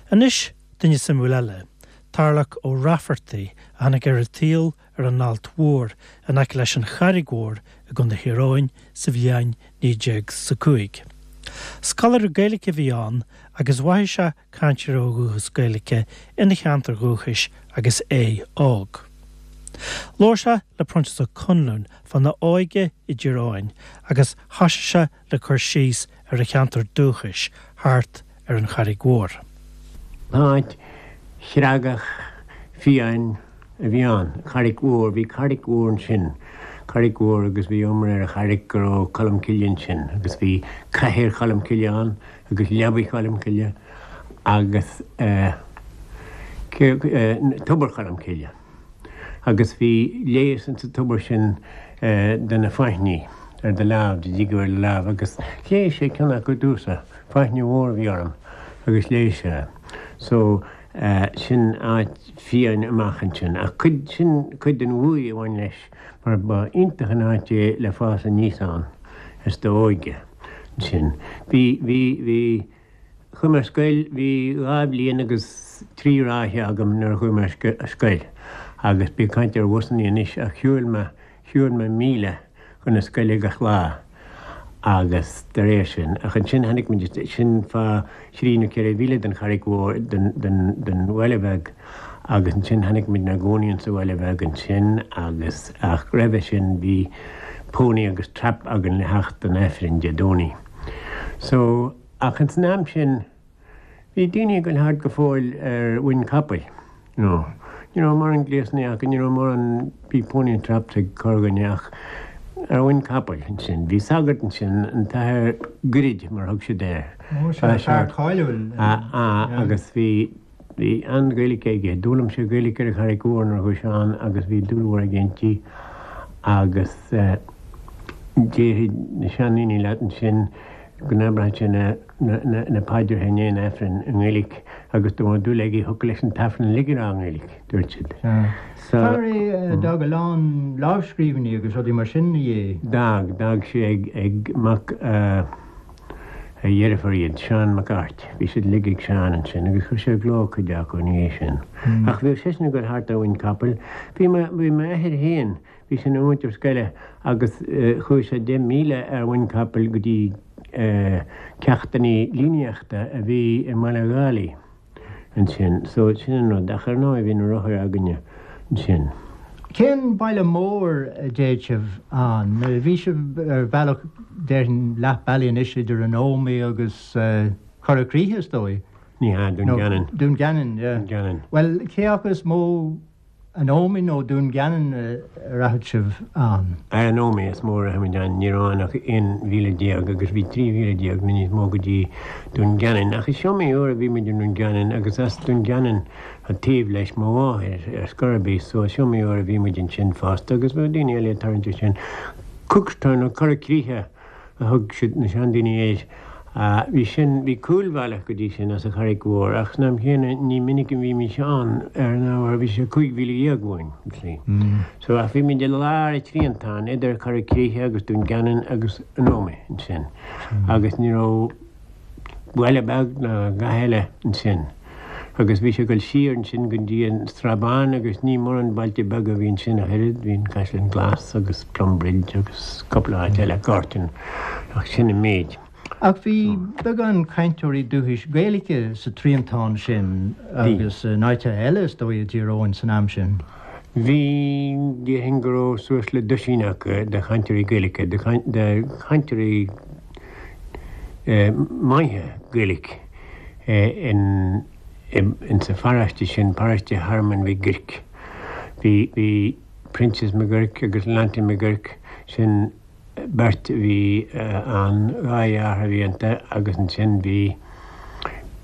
Anois, duine suimiúil eile, Tarlach Ó Raifeartaigh, a tháinig ar an tsaol ar an Ailt Mhór in aice leis an Charraig Mhór i gContae Thír Eoghain sa bhliain 1905. Scoláire Gaeilge a bhí ann agus mhaígh sé cainteoirí ó dhúchas Gaeilge ina cheantar dhúchais agus é óg. Labhair sé le Proinsias Ó Conluain fána óige i dTír Eoghain agus thosaigh sé le cur síos ar a cheantar dúchais thart ar an Charraig Mhór. Áit chreagach fiáin a bhí ann, Carraig Mhór, bhí carraig mhór ansin, carraig mhór agus bhí iomrá ar an charraig go raibh Colm Cille ansin agus bhí cathaoir Cholm Cille ann agus leabaidh Cholm Cille agus tobar Cholm Cille agus bhí leigheas insa tobar sin do na faithní ar do lámh, dá dtigeadh ar do lámh agus leigheas sé ceann acu domhsa, faithne mhór a bhí orm agus leigheas sé. So sin áit fiáin amach ansin ach cuid, sin cuid den bhuaidh a bhain leis mar ba iontach an áit é le fás aníos ann is d'óige ansin. Bhí, bhí, bhí, chuaigh mé ar scoil, bhí dhá bhliain agus trí ráithe agam nuair a chuaigh mé ar scoil agus bí ag caint ar bhusannaí anois ach shiúil mé, Shiúil mé míle chun na scoile gach lá agus de réir sin, ach ansin tháinig muid isteach, sin fá thrí nó ceithre mhíle den Charraig Mhór, den, den, den bhaile bheag agus ansin tháinig muid inár gcónaí insa bhaile bheag ansin agus, ach roimhe sin bhí pony agus trap againn le theacht don Aifreann Dé Domhnaigh. So, ach ins an am sin, Bhí daoine ag goil thart go fóill ar mhuin capaill, you know. Ní raibh mórán gléasanna acu, ní raibh mórán, bhí pony and traps ag corrdhuine ach ar mhuin capaill ansin. Bhí sagart ansin, an tAthair Goirid mar a thug siad air. Ó sea, fear cáiliúil. Ah, agus bhí, bhí an-Ghaeilge aige. D'fhoghlaim sé Gaeilge ar an Charraig Mhór nuair a chuaigh sé ann agus bhí dúil mhór aige inti agus eh, déarfaidh na seandaoine leat ansin go n-abradh sé na na paidreacha i ndiaidh an Aifrinn i nGaeilge agus dá mbeadh dúil aige thiocfadh leis an tAifreann uilig a rá i nGaeilge, dúirt siad. Fear é a d'fhág a lán lámhscríbhinní agus rudaí mar sin ina dhiaidh. D'fhág, d'fhág sé ag, ag mac a dheirfiúr iad, Seán Mac Airt. Bhí siad uilig ag Seán ansin agus chuir sé i gcló cuid acu ina dhiaidh sin. Ach bhíodh seisean ag dul thart ar mhuin capaill. Bhí mo, bhí m'athair féin, Bhí sé ina mhúinteoir scoile agus chuaigh sé 10,000 ar mhuin capaill go dtí ceachtanna líníochta a bhí i mBaile Dhálaigh ansin. So sin an rud. Ach ar ndóigh bhí na rothair againne ansin. Cén baile mór a dtéadh sibh ann? Bhí sibh ar bhealach, déarfainn, leath bealaigh anois idir an Ómaigh agus Cora Críche, is dóigh? Ní hea, Dún Geanainn. Dún Geanainn, yeah. Dún Geanainn. Bhuel, cé acu is mó An Ómaigh nó Dún Geanainn a rachadh sibh ann? Ar an Ómaigh is mó a rachadh muid ann. Ní raibh ann ach 11 mhíle agus bhí 13 mhíle nó níos mó go dtí Dún Geanainn. Ach is iomaí uair a bhí muid i nDún Geanainn agus as Dún Geanainn taobh leis mo mháthair ar scor ar bith so is iomaí uair a bhí muid ansin fosta agus bheadh daoine eile ag tarraingt ansin. Cookstown nó Cora Críche a thug siad, na seandaoine air. Bhí sin, bhí cúlbhealach go dtí sin as an Charraig Mhór ach san am chéanna ní minic a bhímís ann ar an ábhar bhí sé 15,000 uainn, you see. So ach bhí muid i lár an triantáin idir Cora Críche agus Dún Geanainn agus an Ómaigh ansin agus ní raibh baile beag ná a dhath eile ansin agus bhí sé ag dul siar ansin go dtí an Srath Bán agus ní mórán bailte beaga a bhí ansin ach oiread, bhí an Caisleán Glas agus Plumbridge agus cúpla áit eile, Gortin, ach sin an méid. Ach bhí beagán cainteoirí dúchais Gaeilge sa triantán sin agus in áiteacha eile is dóigh i dTír Eoghain san am sin. Bhí, déarfainn go raibh suas le duisín acu de chainteoirí Gaeilge, de chainteoirí maithe Gaeilge in sa pharóiste sin, paróiste Thearmainn Mhig Guirc. Bhí, bhí Proinsias Mac Guirc agus Leonty Mac Guirc, sin beirt a bhí ann, dhá dheartháir a bhí iontu agus ansin bhí,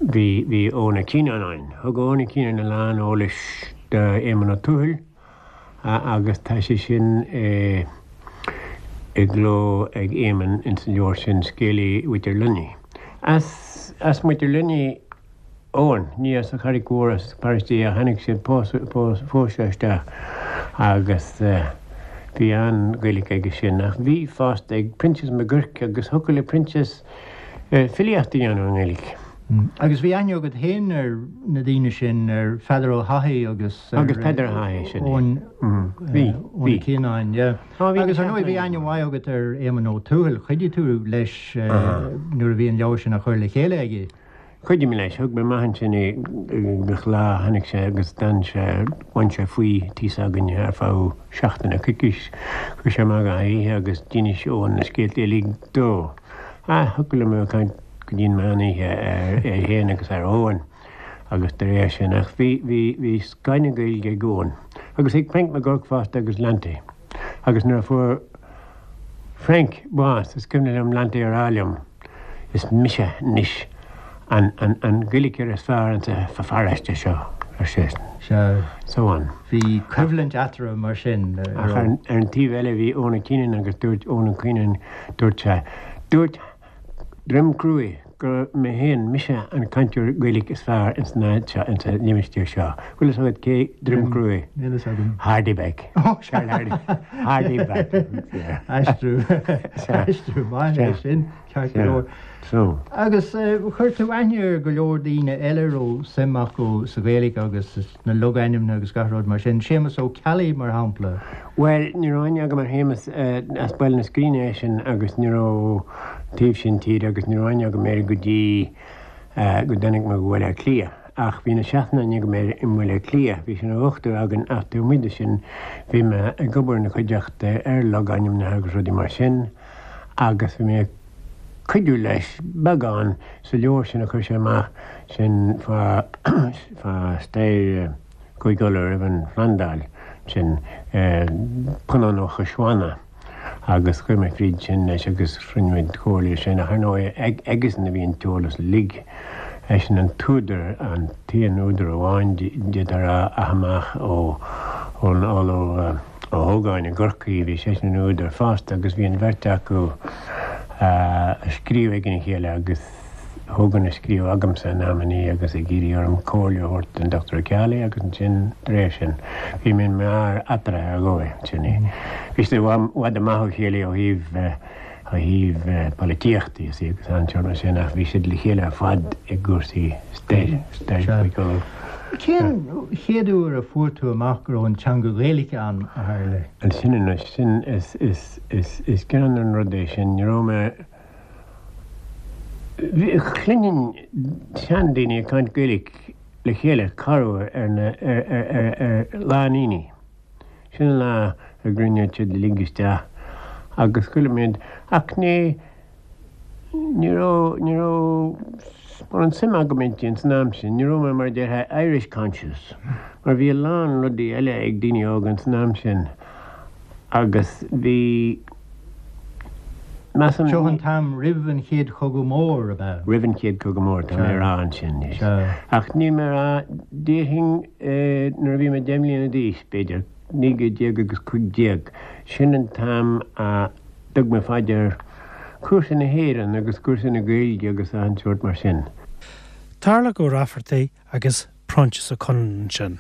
bhí, bhí Eoin Ó Cianáin ann. Thug Eoin Ó Cianáin a lán eolais do Éamonn Ó Tuathail. agus tá sé sin i gcló ag Éamonn ins an leabhar sin, Scéalaí Mhuintir Luinnigh. As as Muintir Luinnigh Eoin, ní as an Charraig Mhór as paróiste é, tháinig sé, phós sé isteach agus bhí an-Ghaeilge aige sin. Ach bhí fosta ag Proinsias Mac Guirc agus thiocfadh le Proinsias filíocht a dhéanamh i nGaeilge. Agus bhí aithne agat féin ar na daoine sin, ar Pheadar Ó hAthaigh agus ar Agus Peadar Ó hAthaigh, sin é. Eoin Bhí, Ó bhí. Cianáin, yeah. Á, bhí Agus ar ndóigh bhí aithne mhaith agat ar Éamonn Ó Tuathail, chuidigh tú leis nuair a bhí an leabhar sin á chur le chéile aige. Chuidigh mé leis, thug mé amach ansin é gach lá, tháinig sé agus d'fhan sé, bhain sé faoi tí s'againne ar feadh seachtaine, coicís, chuaigh sé amach gach oíche agus d'inis Eoin na scéalta uilig dó. Ah, thiocfadh liom a bheith ag caint go dtí an meán oíche ar é féin agus ar Eoin agus de réir sin ach bhí, bhí, bhí scoth na Gaeilge ag Eoin agus ag Frank McGurk fosta agus Lanty agus nuair a fuair Frank bás is cuimhin liom Lanty a rá liom is mise anois an, an, an Gaeilgeoir is fearr insa pharóiste seo ar seisean. Sea. So on. Bhí coimhlint eatarthu mar sin. Ach ar, ar an taobh eile bhí Eoin Keenan agus dúirt Eoin Keenan, dúirt sé, dúirt Droim Cruaidh gur mé féin, mise an cainteoir Gaeilge is fearr ins an áit seo, ins an limistéar seo. Bhfuil fhios agat cé Droim Cruaidh? Níl fhios agam. Hardy Beck. Charlie Hardy. Hardy Beck. Aistriú. Aistriú maith é sin, ceart go leor. So. Agus chuir tú aithne ar go leor daoine eile a raibh suim acu sa Ghaeilge agus na logainmneacha agus gach rud mar sin. Séamus Ó Ceallaigh, mar shampla. Bhuel, ní raibh aithne agam ar Shéamus, as Baile na Scríne eisean agus ní raibh, an taobh sin tíre, agus ní raibh aithne agam air go dtí go dtáinig mé go Baile Átha Cliath. Ach bhí na seachtain aithne agam air i mBaile Átha Cliath, bhí sé ina dhochtúir againn ach taobh amuigh de sin bhí mé ag obair ina chuideachta ar logainmneacha agus rudaí mar sin agus bhí mé ag cuidiú leis beagán sa leabhar sin a chuir sé amach sin fá fá stair Chúige Uladh roimh an Phlandáil, sin Punann Ó Coisbheanna agus chuaigh mé fríd sin leis agus rinne muid comhairle sin ach ar ndóigh aigesan a bhí an t-eolas uilig. Eisean an t-údar, an t-aon údar amháin d'fhéadfá a rá ach amach ó ón Ollamh Ó hÓgáin i gCorcaigh, bhí seisean ina údar fosta agus bhí an bheirt acu ag scríobh ag a chéile agus Hogan ag scríobh agamsa in amannaí agus ag iarraidh orm comhairle a thabhairt don Dr. Ó Ceallaigh agus ansin de réir sin bhí mé mar eatarthu ar dhóigh, sin é. Bhí siad i bhfad amach ó chéile ó thaobh ó thaobh polaitíochta you see agus an sórt mar sin ach bhí siad le chéile ar fad i gcúrsaí stair, stair Chúige Uladh. Cén chéad uair a fuair tú amach go raibh an teanga Ghaeilge ann, a Tharlaigh? Ansin anois, sin, is, is, is, is greannmhar an rud é sin, ní raibh mé, bhí, chluinfinn seandaoine ag caint Gaeilge le chéile corruair ar na, ar, ar, ar, ar Lá an Aonaigh. Sin an lá a gcruinníodh siad uilig isteach agus chuala muid, ach ní, ní raibh, ní raibh mórán suim agam inti ins an am sin, ní raibh mé mar a déarfá Irish conscious, mar bhí a lán rudaí eile ag daoine óga ins an am sin agus bhí, measaim. Seo an t-am roimh an Chéad Chogadh Mór, ab ea? Roimh an Chéad Chogadh Mór, tá mé a rá ansin, yes. Ach níl mé a rá, déarfainn nuair a bhí mé deich mbliana d'aois, b'fhéidir, 19 agus 15, sin an t-am a dtug mé fá dear cúrsaí na hÉireann agus cúrsaí na Gaeilge agus achan sórt mar sin. Tarlach Ó Raifeartaigh agus Proinsias Ó Conluain ansin.